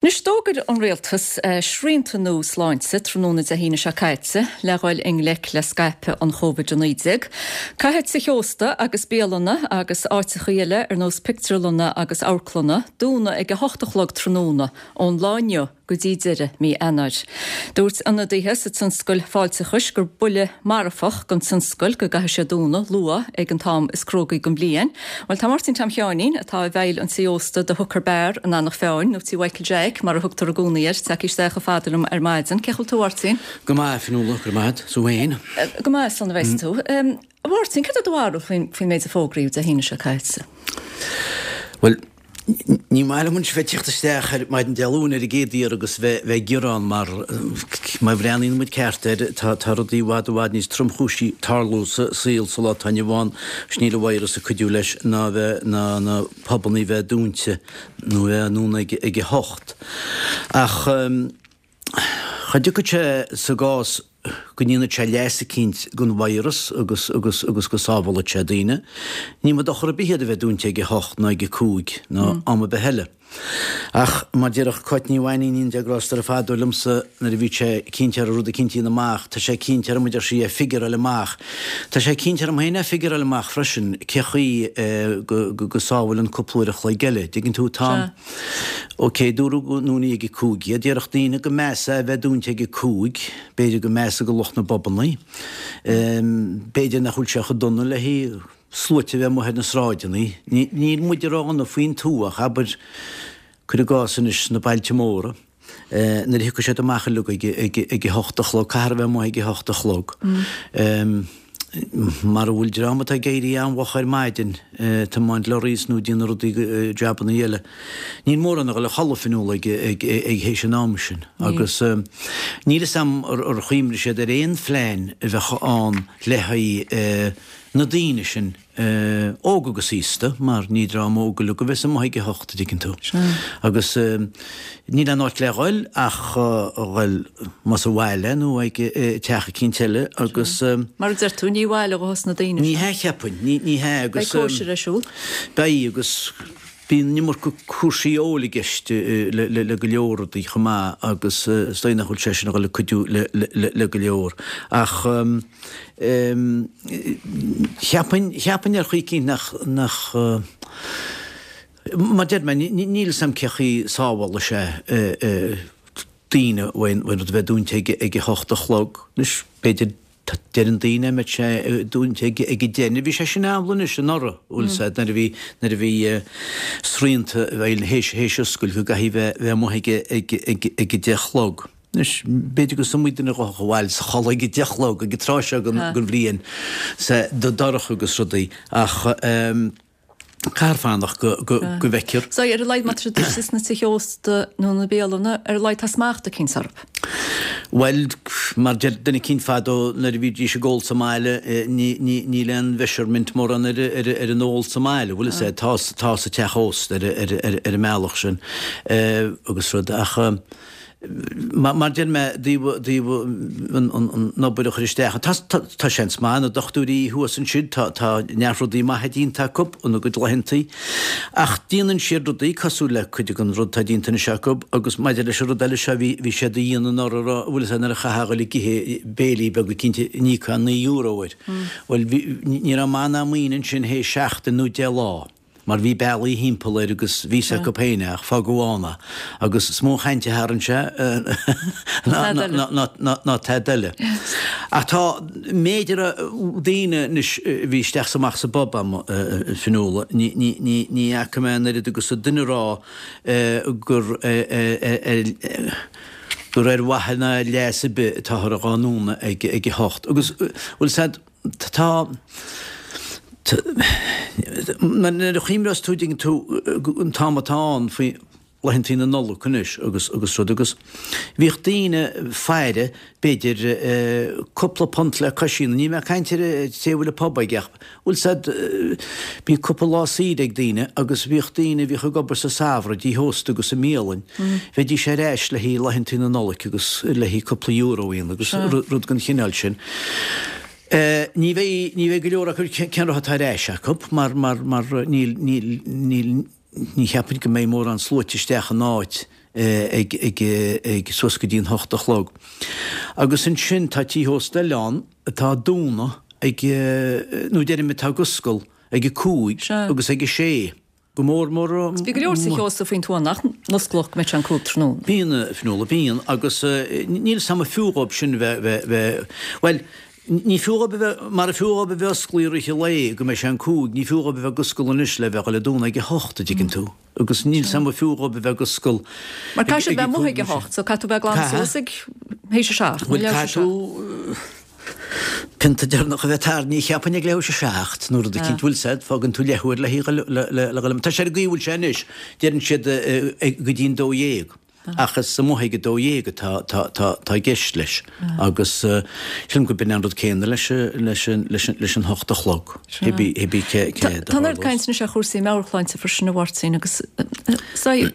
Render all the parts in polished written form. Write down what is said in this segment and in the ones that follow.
Anois, d'fhógair an Rialtas srianta nua sláinte tráthnóna Dé hAoine seo caite le dhul i ngleic le scaipeadh an Covid-19. Caithfidh tithe ósta agus bialanna agus áiteachaí eile ar nós pictiúrlanna agus amharclanna dúnadh ag 8 a chlog tráthnóna ón lá inniu go dtí deireadh mí Eanáir. Dúirt ionadaithe sa tionscal fáilteachais gur buille marfach don tionscal go gcaithfidh sé dúnadh luath ag an t-am is cruógaí den bhliain. Bhuel, tá Máirtín Tom Sheáinín, atá i bhfeighil an tí ósta The Hooker Bar in Eanach Mheáin, nó Tí Mhichael Jeaic mar a thugtar i gcónaí air, tagtha isteach chomh fada liom ar maidin. Cén chaoi a bhfuil tú, a Mháirtín? Go maith, a Fionnuala, go raibh maith agat. 's thú féin? Go maith, slán a bheas tú. A Mháirtín, cad é do bharúil faoin méid a fógraíodh Dé hAoine seo caite? Bhuel, Ní maith liom anois bheith ag teacht isteach ar maidin Dé Luain ar an gcéad iarraidh agus bheith ag gearán mar má bhreathnaíonn muid ceart air tá tá rudaí i bhfad i bhfad níos tromchúisí ag tarlú sa saol sa lá atá inniu ann agus níl an virus ag cuidiú leis ná bheith ná na pubannaí bheith dúnta nó bheith á ndúnadh ag ag a hocht. Ach cha dtiocfaidh sé sa gcás go ndéanfaidh sé leas eicínt don virus agus agus agus go sábhálfaidh sé daoine. Ní mó dochar ar bith iad a bheith dúnta ag a hocht ná ag a cúig ná am ar bith eile. Ach mar déarfadh Cáit Ní Mhainín, Dia grásta uirthi fadó liomsa nuair a bhí sé cinnte ar rud eicínt a dhéanamh amach, tá sé cinnte orm a deir sí é figureáil amach. Tá sé cinnte orm féin é figureáil amach freisin cé chaoi go go sábhálann cúpla uair a chloig eile. Dtuigeann tú, tá. Ok, dúradh go ndúnfaí ag a 5 iad. Déarfadh daoine go measa é a bheith dúnta ag a 5. B'fhéidir go measa do lucht na bpubannaí. B'fhéidir nach bhfuil sé chomh dona le haghaidh sluaite a bheith amuigh ar na sráideanna. Níl muide ródhona faoin tuath ach abair, cuir i gcás anois sna bailte móra. Nuair a thiocfaidh siad amach uilig ag a hocht a chlog, caithfear a bheith amuigh ag a hocht a chlog. Mara bhfuil dream atá ag éirí an-mhoch ar maidin, ag tiomáint lorries nó ag déanamh rudaí, jabannaí eile, níl mórán a dhul a chodladh Fionnuala ag théis an am sin. Agus níl fhios a'm ar chuimhnigh siad ar aon phlean a bheadh ann le haghaidh na daoine sin óg agus aosta, mar ní dream óg uilig a bheas amuigh ag a hocht, a dtuigeann tú. Agus níl aon áit le dhul ach a dhul más abhaile nó ag teach eicínt eile agus. Mar a deir tú, ní bhaile dhos na daoine seo. Ní hea, cheapfainn, ní hea agus. Beidh cóisir ar siúl. Beidh agus bíonn an iomarca cúrsaí óil i gceist le go leor rudaí chomh maith agus is dóigh nach bhfuil sé sin a dhul ag cuidiú le go leor. Ach. Cheapfainn, cheapfainn ar chaoi eicínt nach, nach, mar deir mé, níl 'fhios a'm cé chaoi sábhálfaidh sé daoine uaidh an rud a bheith dúnta ag, ag a hocht a chlog. Anois, b'fhéidir, deireann daoine mbeadh sé dúnta ag, ag a deich. Bhí sé sin amhlaidh anois anuraidh, bhfuil 'fhios a'd, nuair a bhí, nuair a bhí srianta i bhfeidhm théis, théis oscailt go gcaithfidh bheith, bheith amuigh ag, ag, ag, ag a deich a chlog. Anois, b'fhéidir gur iomaí duine a ghabhfadh abhaile is a chodladh ag a deich a chlog ag an tráth seo den bhliain, sea, dorcha agus rudaí, ach caithfear fanacht go bhfeicfear. So, ar a laghad má tá siad istigh sna tithe ósta nó na bialanna, ar a laghad tá smacht eicínt orthu. Bhuel, mar deir duine eicínt fadó, nuair a bhídís ag ól sa mbaile, níl aon mheasurement mórán ar an ól sa mbaile, bhfuil 'fhios a'd, tá tá sa teach ósta ar an mbealach sin agus rud, ach. Mar deir mé, dtaobh an obair a chur isteach, tá seans maith, na dochtúirí thuas ansin, tá neart rudaí maithe déanta acu ina gcuid laethantaí, ach déanann siad rudaí cosúil le cuid den rud atá déanta anois acu agus maidir leis an rud eile seo bhí bhí siad a dhéanamh anuraidh a rá, bhfuil 'fhios a'd nuair a chaithfeá a dhul ag ithe béilí beaga cinnte n-íocfá €9 air. Bhuel ní raibh maith ná maoin ansin théis seachtain nó 10 lá. mar bhí bealaí thimpeall air agus bhí 'fhios acu féin é ach fágadh ann é agus is mó an chaint a tharraing sé ná tada eile. Ach tá méid a raibh daoine anois a bhí isteach 's amach sa bpub a'm, a Fionnuala, ní fhaca mé an oiread agus duine a rá gur gur ar mhaithe ná leas ar bith atáthar dhá ndúnadh ag a hocht. Agus bhfuil 'fhios a'd, Tá, nuair a chuimhneos tú, dtuigeann tú, an t-am atá ann faoi laethantaí na Nollag anois agus agus rud agus bhíodh daoine faire b'fhéidir cúpla punt le cois ní mé ag caint ar an té a bhfuil an pub aige ach bhfuil 'fhios a'd bhí cúpla lá saoire ag daoine agus bhíodh daoine a bhíodh ag obair sa samhradh i dtithe ósta agus i mbialainn bheidís ar ais le haghaidh laethantaí na Nollag agus le haghaidh cúpla euro a dhéanamh agus rud den chineál sin. Ní bheidh, ní bheidh go leor acu cén rud atá ar ais acu mar, mar, mar níl, níl, níl. Ní cheapfainn go mbeidh mórán sluaite isteach in áit ag ag ag suas go dtí an hocht a chlog. Agus ansin tá tithe ósta eile ann atá ag dúnadh ag, nó deirim atá ag oscail ag a 5 agus ag a sé. Go mór mór. Agus bíonn go leor sa teach ósta faoin tuath nach n-osclódh go mbeadh sé an 5 tráthnóna. Bíonn, a Fionnuala, bíonn agus níl 's a'm an fiú dhóibh sin bheith, bheith, bheith, bhuel, Ní fiú dhóibh a bheith, mara fiú dhóibh a bheith osclaí i rith an lae go mbeidh sé an 5, ní fiú dhóibh a bheith ag oscail anois le bheith ag dul ag dúnadh ag a hocht, a dtuigeann tú. Agus níl 's a'm an fiú dhóibh a bheith ag oscail Mar caithfidh siad bheith amuigh ag a hocht, so caithfidh tú bheith glan suas ag théis a seacht, nó leathuair théis a seacht. Bhuel, caithfidh tú pionta deireanach a bheith tarraingthe, cheapfainn ag leathuair théis a seacht, nó rud eicínt, bhfuil 's a'd, fágann tú leathuair le le dhul, tá sé ar an gcaoi a bhfuil sé anois, deireann siad go dtí an 12. Ach is amuigh ag 12 atá i gceist leis agus sílim go b'in an rud céanna leis an hocht a chlog, cibé cé a Tá an oiread caint anois ar chúrsaí meabhairshláinte freisin a Mháirtín agus bhí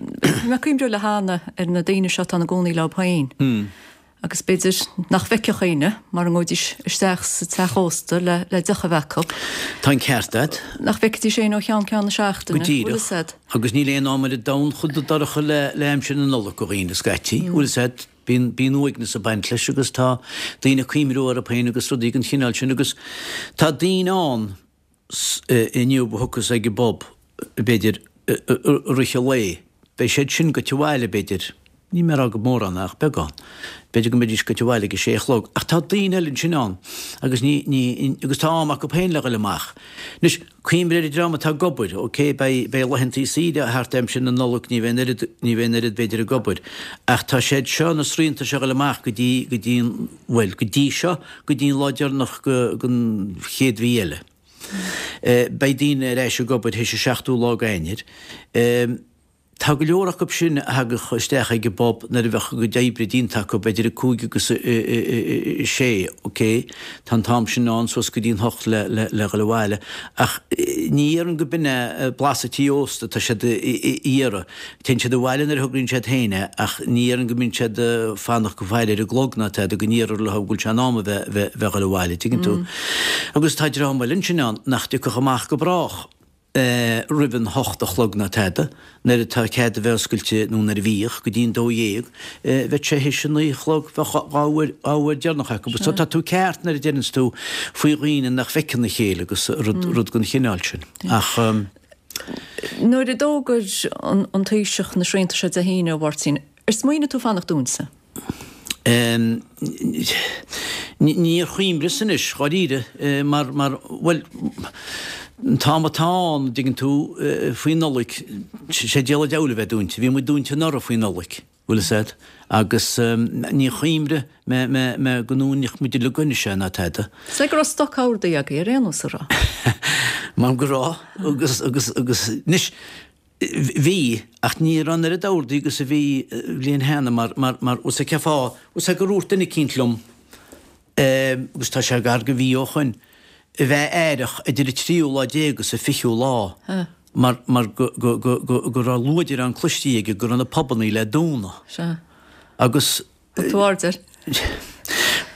mé ag cuimhniú le hAnna ar na daoine seo atá ina gcónaí leo féin. Agus b'fhéidir nach bhfeicfeadh éinne mara ngabhaidís isteach sa teach ósta le le deoch a bheith acu. Tá an ceart agat. Nach bhfeicfidís éinne ó cheann ceann na seachtaine. Go díreach. Bhfuil 'fhios a'd. Agus níl aon am ar an domhan chomh dorcha le le aimsir na Nollag do dhaoine scaití. Bhfuil 'fhios a'd. Bíonn bíonn uaigneas ag baint leis agus tá daoine ag cuimhniú orthu féin agus rudaí den chineál sin agus tá daoine ann inniu a thiocfas ag an bpub, b'fhéidir, i rith an lae. Beidh siad sin goite abhaile, b'fhéidir, níl mé ag rá go mórán ach beagán, b'fhéidir go mbeidís goite abhaile ag a sé a chlog. Ach tá daoine eile ansin ann agus ní, ní, agus tá am acu féin le dhul amach. Anois, cuimhnigh ar an dream atá ag obair, ok, beidh, beidh laethantaí saoire thart aimsir na Nollag, ní bheidh an oiread, ní bheidh an oiread b'fhéidir ag obair. Ach tá siad seo, na srianta seo ag dhul amach go dtí, go dtí an, bhuel, go dtí seo, go dtí an lá deireanach den chéad mhí eile. Beidh daoine ar ais ag obair théis an seachtú lá d'Eanáir. Tá go leor acu sin a thagadh isteach ag an bpub nuair a bheadh a gcuid oibre déanta acu, idir a cúig agus a sé, ok, tá an t-am sin ann suas go dtí an hocht le le dhul abhaile, ach ní dhéarfainn go b'in é blas an tí ósta atá siad a iarraidh. Téann siad abhaile nuair a thograíonn siad féin é ach ní dhéarfainn go mbíonn siad ag fanacht go faire ar an gclog ná tada go n-iarrfar leo go bhfuil sé in am a bheith bheith bheith dhul abhaile, tuigeann tú. Agus tá dream eile ansin ann nach dtiocfadh amach go brách roimh an hocht a chlog ná tada, nuair atá cead a bheith oscailte nó nuair a bhíodh, go dtí an 12, bheadh sé théis a naoi a chlog, bheadh dhá uair dhá uair deireanach acu. So tá tú ceart nuair a deireanns tú faoi dhaoine nach bhfeiceann a chéile agus rud rud den chineál sin. Ach. Nuair a d'fhógair an Taoiseach na srianta seo Dé hAoine, a Mháirtín, ar smaoinigh tú fanacht dúinte? Níor chuimhneas anois, dháiríre, mar, mar, bhuel, an t-am atá ann, an dtuigeann tú, faoi Nollaig, sé díol an diabhail a bheith dúinte. Bhí muid dúinte anuraidh faoi Nollaig. Bhfuil fhios a'd? Agus níor chuimhnigh mé, mé, mé go ndúnfadh muid uilig anois é ná tada. Is é go raibh stoc ordaithe agaibh ar aon nós, an raibh? Mar go raibh, agus, agus, agus, anois, bhí, ach ní raibh an oiread ordaithe agus a bhí bliain cheana mar, mar, mar, bhfuil fhios a'd cén fáth, bhfuil fhios a'd gur dhúirt duine eicínt liom, agus tá sé gar go mhí ó shoin, a bheith aireach idir an tríú lá déag agus an fichiú lá mar mar go go go go go raibh luaidreán cloistí aige go raibh na pubannaí le dúnadh. Sea. Agus. Thug tú aird air?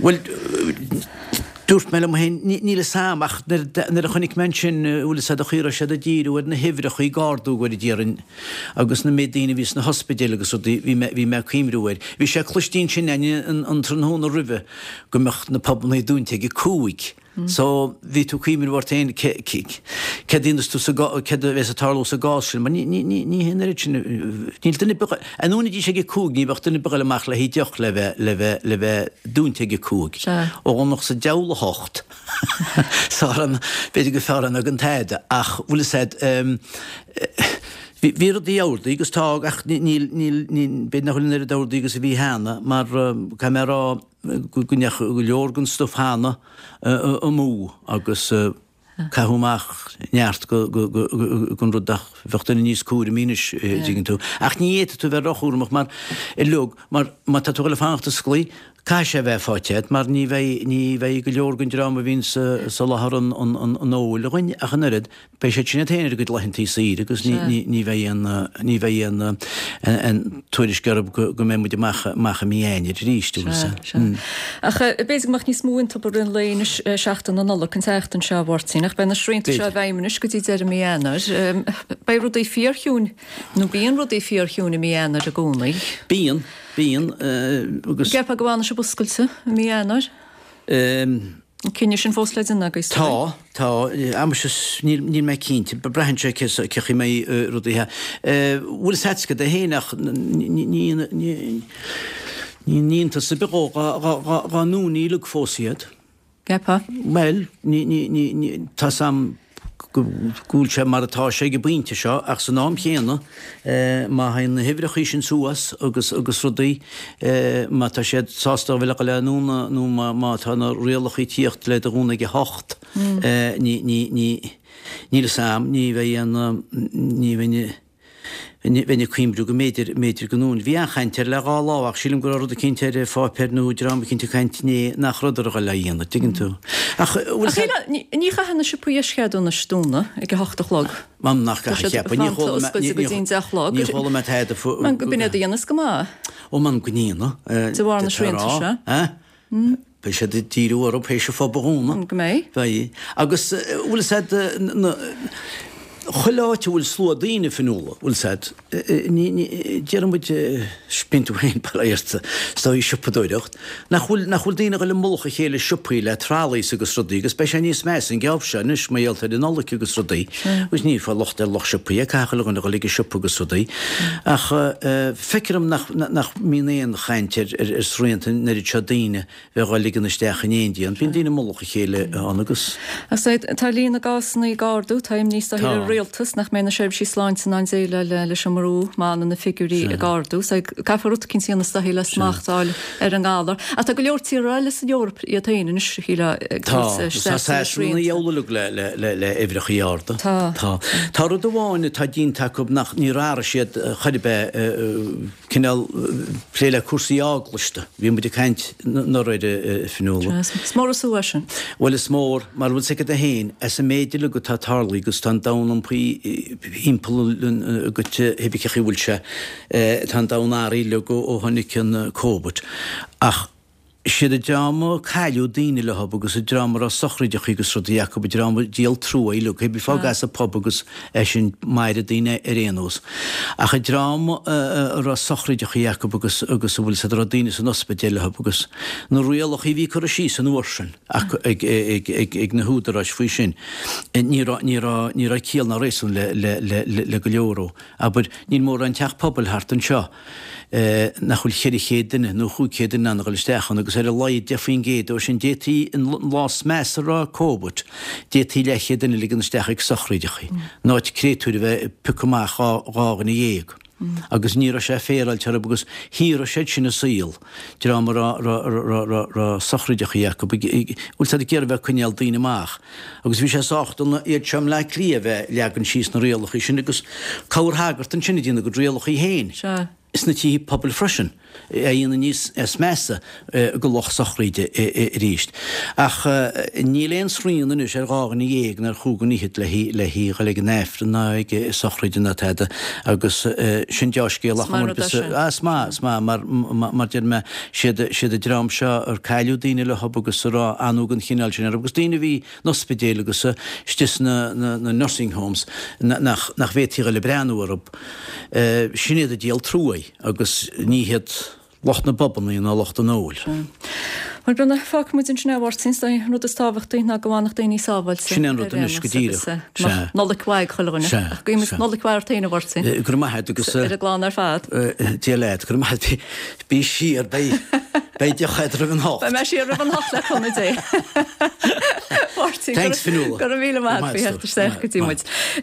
Bhuel, dúirt mé liom féin, níl fhios a'm ach nuair a chonaic mé ansin, bhfuil fhios a'd, an chaoi a raibh siad ag díriú ar na huimhreacha ag ardú go déarfainn agus na méid daoine a bhí sna hospidéil agus rudaí, bhí mé bhí mé ag cuimhniú air. Bhí sé cloistí ansin againn an tráthnóna roimhe go mbeadh na pubannaí dúnta ag a cúig. So, bhí tú ag cuimhniú ort féin céard a dhéanfas tú sa céard a bheas ag tarlú sa gcás sin, mar ní ní ní ní hé an oiread sin, níl duine ar bith, a ndúnfaidís ag a cúig, ní bheadh duine ar bith ag dul amach le haghaidh deoch le bheith le bheith le bheith dúnta ag a cúig. Sea. Ó Dhomhnach sa diabhal a hocht. Sár an, b'fhéidir gur fearr é ná gan tada, ach bhfuil fhios a'd, bhí bhí rudaí ordaithe agus tá, ach níl níl níl, b'fhéidir nach bhfuil an oiread ordaithe agus a bhí cheana, mar caithfidh mé a rá, go ndeachaigh go leor den stuif cheana amú agus caitheadh amach neart den rud ach bheadh duine níos cúramaí anois, an dtuigeann tú. Ach ní fhéadfaidh tú bheith róchúramach mar uilig, mar má tá tú ag dul ag fanacht osclaí, Caithfidh sé a bheith faighte agat mar ní bheidh, ní bheidh go leor den dream a bhíonn ag soláthar an, an, an, an óil againn ach an oiread, beidh siad sin iad féin ar a gcuid laethantaí saoire agus ní, ní, ní bheidh aon, ní bheidh aon, aon tuairisc orthu go, go mbeidh muid amach, amach i mí Eanáir arís, an bhfuil Sea, sea. Ach b'fhéidir go mbeadh níos mó iontu i rith an lae anois, seachtain na Nollag, an tseachtain seo, a Mháirtín, ach beidh na srianta seo i bhfeidhm anois go dtí deireadh mí Eanáir. Beidh rudaí fíorchiúin, nó bíonn rudaí fíorchiúin i mí Eanáir i gcónaí. Bíonn. Bíonn, agus. An gceapfá go bhfanfaidh sibh oscailte i mí Eanáir? An cinneadh sin fós le déanamh agaibh? Tá, tá. Amuigh níl, níl mé cinnte. Braitheann sé cé chaoi mbeidh rudaí. Bhfuil fhios agat cad é féin ach ní, ní, ní, ní iontas ar bith dhó dá ndúnfaí uilig fós iad. Gceapfá? Bhuel, ní, ní, ní, ní, tá 'fhios a'm go bhfuil sé mar atá sé ag an bpointe seo ach san am chéanna má théann na huimhreachaí sin suas agus agus rudaí, má tá siad sásta a bheith le dhul i ndúnadh nó má má tá na rialachaí ag tíocht le do dhúnadh ag a hocht, ní, ní, ní, níl 'fhios a'm, ní bheidh aon, ní bheidh. Bheinn ag cuimhniú go mb'fhéidir, mb'fhéidir go ndúnfaí. Bhí an-chaint air le dhá lá ach sílim go raibh rud eicínt ar pháipéar nó dream eicínt ag caint inné nach rabhadar a dhul á dhéanamh, dtuigeann tú. Ach bhfuil Ach shíl, ní chaithfidh na siopaí eischeadúnais dúnadh ag a hocht a chlog. M'anam nach Tá gcaithfidh, siad cheapfainn. Ní fanta chuala mé, oscailte go dtí an deich a chlog. ní chuala mé tada fú. B'in iad a dhéanas go maith. Ó m'anam go ndéanadh. De bharr na srianta seo. Beidh siad ag díriú orthu théis an phub a dhúnadh. Go mbeidh. Beidh. Agus bhfuil 'fhios a'd, na, chuile áit a bhfuil slua daoine, Fionnuala, bhfuil 'fhios a'd, ní, ní, déarfaidh muid, bíonn tú féin bail ó Dhia ort, is dóigh siopadóireacht, nach bhfuil, nach bhfuil daoine ag dul i mullach a chéile i siopaí le trolleys agus rudaí agus beidh sé níos measa an geábh seo anois mar gheall ar an Nollaig agus rudaí agus ní fáil locht ar lucht siopaí, caithfidh chuile dhuine a dhul ag an siopa agus rudaí ach feictear dom nach, nach mbíonn aon chaint ar, ar, ar srianta an oiread seo daoine bheith dhá ligean isteach in éindí ann. Bíonn daoine i mullach a chéile ann agus. Ach tá líon na gcásanna ag ardú, tá imní is dóichí ar an rialtas nach mbeidh na seirbhísí sláinte in ann déileáil leis an mbrú má fhanann na figiúirí ag ardú. So caithfear rud eicínt a dhéanamh is dóichí le smacht a fháil ar an ngalar. Ach tá go leor tíortha eile san Eoraip iad féin anois, a shílfeá, ag tabhairt isteach na srianta. Tá Sasana ina dheabhal uilig le uimhreachaí arda. Tá. Tá. Tá rud amháin atá déanta acu nach níor athraigh siad chor ar bith, cineál plé le cúrsaí eaglasta. Bhí muid ag caint anuraidh air, a Fionnuala. Is mór an sú é sin. Bhuel is mór, mar bhfuil 's agat féin, as an méid uilig atá tarlaithe agus tá an domhan iompaithe thimpeall agat cibé cén chaoi a bhfuil sé, tá an domhan athraithe uilig ó tháinig an Covid. Ach Siad an dream a cailleadh daoine leo agus an dream a raibh sochraideachaí agus rudaí acu, an dream a díol trua uilig, cibé fág as an pub agus é sin maireadh daoine ar aon nós. Ach an dream a raibh sochraideachaí acu agus agus a bhfuil 's a'd a raibh daoine san ospidéal leo agus na rialachaí a bhí curtha síos an uair sin acu ag ag ag ag na húdaráis faoi sin, ní raibh ní raibh ní raibh ciall ná réasún le le le le go leor ó. Abair, níl mórán teach pobail thart anseo. nach bhfuil 400 duine nó 500 duine in ann a dhul isteach ann agus ar a laghad 10% dó sin, d'fhéadfaí an lá is measa a raibh Covid, d'fhéadfaí leathchéad duine a ligean isteach ag sochraideachaí, in áit créatúir a bheith ag piocadh amach dhá dhuine dhéag. Agus ní raibh sé féaráilte orthu agus shaothraigh siad sin a saol, dream a raibh sochraideachaí acu, bhfuil siad ag iarraidh a bheith ag coinneáil daoine amach. Agus bhí sé sách dona iad seo i mBleá Cliath a bheith leagan síos na rialachaí sin agus corrshagart ansin ag déanamh a gcuid rialachaí féin sna tithe pobail freisin, a dhéanamh níos measa go lucht sochraide arís. Ach níl aon srian anois ar dhá dhuine dhéag ná ar chúig dhuine fhichead le dhul ag an Aifreann ná ag sochraid ná tada agus sin deá-scéal ach is maith, is maith mar mar deir mé Siad siad an dream seo ar cailleadh daoine leo agus a raibh anú den chineál sin orthu agus daoine a bhí in ospidéil agus istigh sna na nursing homes nach nach bhféadfaí a dhul ag breathnú orthu. Sin iad a díol truaí agus ní hiad lucht na bpubannaí ná lucht an óil. Bhuel, Brenda, fágfaidh muid ansin é, a Mháirtín. Is é an rud is tábhachtaí ná go bhfanfadh daoine sábháilte. Sin é an rud anois, go díreach. Agus Nollaig mhaith ag chuile dhuine. Sea. Ach guímid Nollaig mhaith ort féin, a Mháirtín. Go raibh maith agat agus. Ar an gclann ar fad. Dia leat, go raibh maith agat. Bí siar, beidh, beidh deoch agat roimh an hocht. Beidh mé siar roimh an hocht le cúnamh Dé. Máirtín, Thanks, Fionnuala. Go raibh míle maith agat faoi theacht isteach go dtí muid.